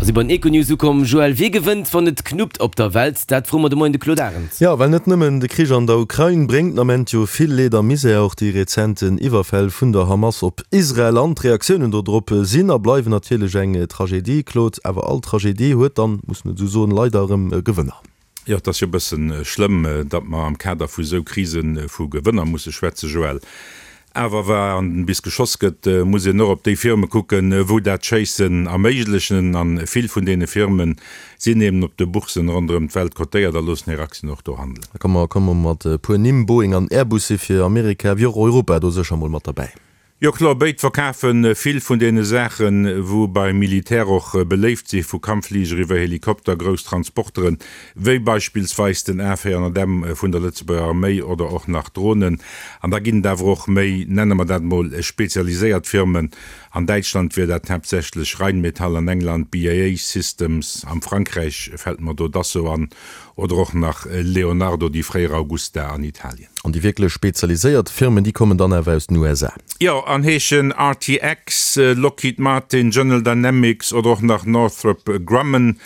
Mer si bei den Econews ukomm. Joël, wie gewënnt, wann et knuppt op der Welt? Dat froe mer de Moien de Claude Arend. Jo, well net nëmmen de Krich an der Ukrain bréngt den Ament jo vill Leed a Misär, och déi rezenten Iwwerfäll vun der Hamas op Israel an d'Reaktiounen dodrop sinn a bleiwen natierlech eng Tragedie, Claude. Awer all Tragedie huet dann, muss en esou soen, leider erëm Gewënner. Jo, et ass jo e bësse schlëmm, datt mer am Kader vu sou Krise vu Gewënner musse schwätzen, Joël. Awer wa bis geschoss gëtt, muss een och op déi Firme kucken, wou dat Schéissen erméiglechen. A vill vun deene Firme sinn eben op de Boursen ronderëm d'Welt kotéiert a loossen hir Aktien och do handelen. Da komme mer mat e puer Nimm, Boeing an Airbus si fir Amerika wéi och Europa do sécher mol mat derbäi. Jo kloer, béid verkafe vill vun deene Saachen, wou beim Militär och beléift si, vu Kampffliger iwwer Helikopter, grouss Transporteren, wéi beispillsweis den A 400 M vun der Lëtzebuerger Arméi oder och nach Dronen. An da ginn et awer och méi, nenne mer dat mol, spezialiséiert Firmen. An Däitschland wier dat haaptsächlech Rheinmetall, an England BAE Systems, am Frankräich fält mer do Dassault an oder och nach Leonardo, déi fréier Augusta an Italien. An déi wierklech spezialiséiert Firmen, déi kommen dann awer aus den USA. Jo, an heeschen RTX, Lockheed Martin, General Dynamics oder och nach Northrop Grumman.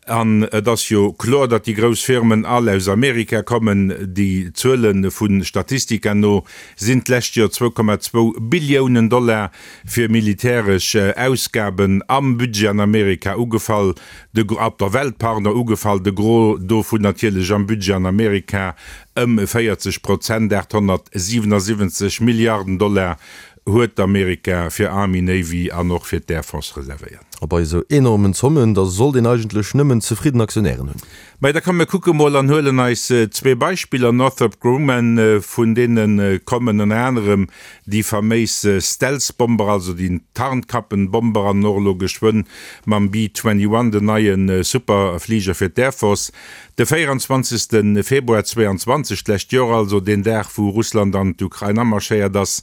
An et ass jo kloer, datt déi grouss Firmen all aus Amerika kommen. Déi Zuele vu Statistica no sinn d'lescht Joer 2,2 Billiounen Dollar fir militäresch Ausgaben am Budget an Amerika ugefall, de, op der Welt, pardon, ugefall, de Gros dovun natierlech am Budget an Amerika. Ëm 40 Prozent, 877 Milliarden Dollar, huet Amerika fir Army, Navy an och fir d'Air Force reservéiert. A bei esou enormen Zommen, da sollt een eigentlech nëmmen zefridden Aktionären hunn. Mä da komm mir kucke mol an huelen eis zwee Beispiller, Northrop Grumman, vun deene kommen ënner anerem déi faméis Stealth-Bomber, also déi Tarnkappenbomber an och elo geschwënn mam B-21, den neie Superfliger fir d'Air Force. De 24. Februar 22, d'lescht Joer also, deen Dag wou Russland an d'Ukrain amarschéiert ass,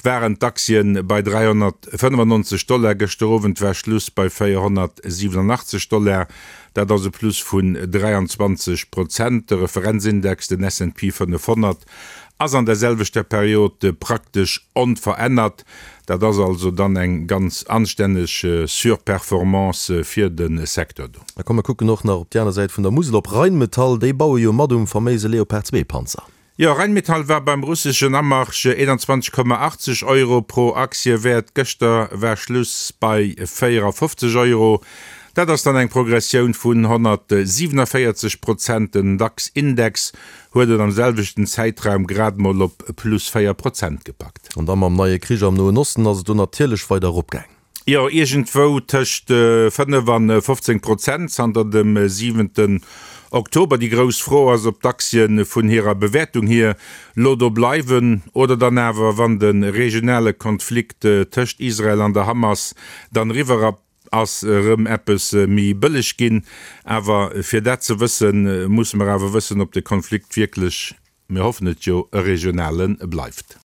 waren d'Aktien bei 395 Dollar. Gëschter Owend war Schluss bei 487 Dollar, dat ass e Plus vun 23 Prozent. De Referenzindex, den S&P 500, ass an der selwechter Period praktesch onverännert. Dat ass also dann eng ganz anstänneg Surperformance fir de Secteur do. Da komm mer kucken och nach op déi aner Säit vun der Musel, op Rheinmetall. Déi baue jo mat um faméise Leopard 2 Panzer. Jo, Rheinmetall war beim russeschen Amarsch 21,80 Euro pro Aktie wäert. Gëschter war Schluss bei 54 Euro. Dat ass dann eng Progressioun vun 147 Prozent. Den DAX-Index huet et am selwechten Zäitraum grad mol op plus 4 Prozent gepackt. An da mam neie Krich am Noen Osten ass et do natierlech weider eropgaang. Jo, iergendwou tëscht 5 an 15 Prozent zanter dem siwenten Oktober. Déi grouss Fro ass, ob d'Aktien vun hirer Bewäertung hier lo do bleiwen oder dann awer, wann de regionale Konflikt tëscht Israel an der Hamas dann eriwwer ass, erëm eppes méi bëlleg ginn. Awer fir dat ze wëssen, musse mer awer wëssen, ob de Konflikt wierklech, mir hoffen et jo, e regionale bleift.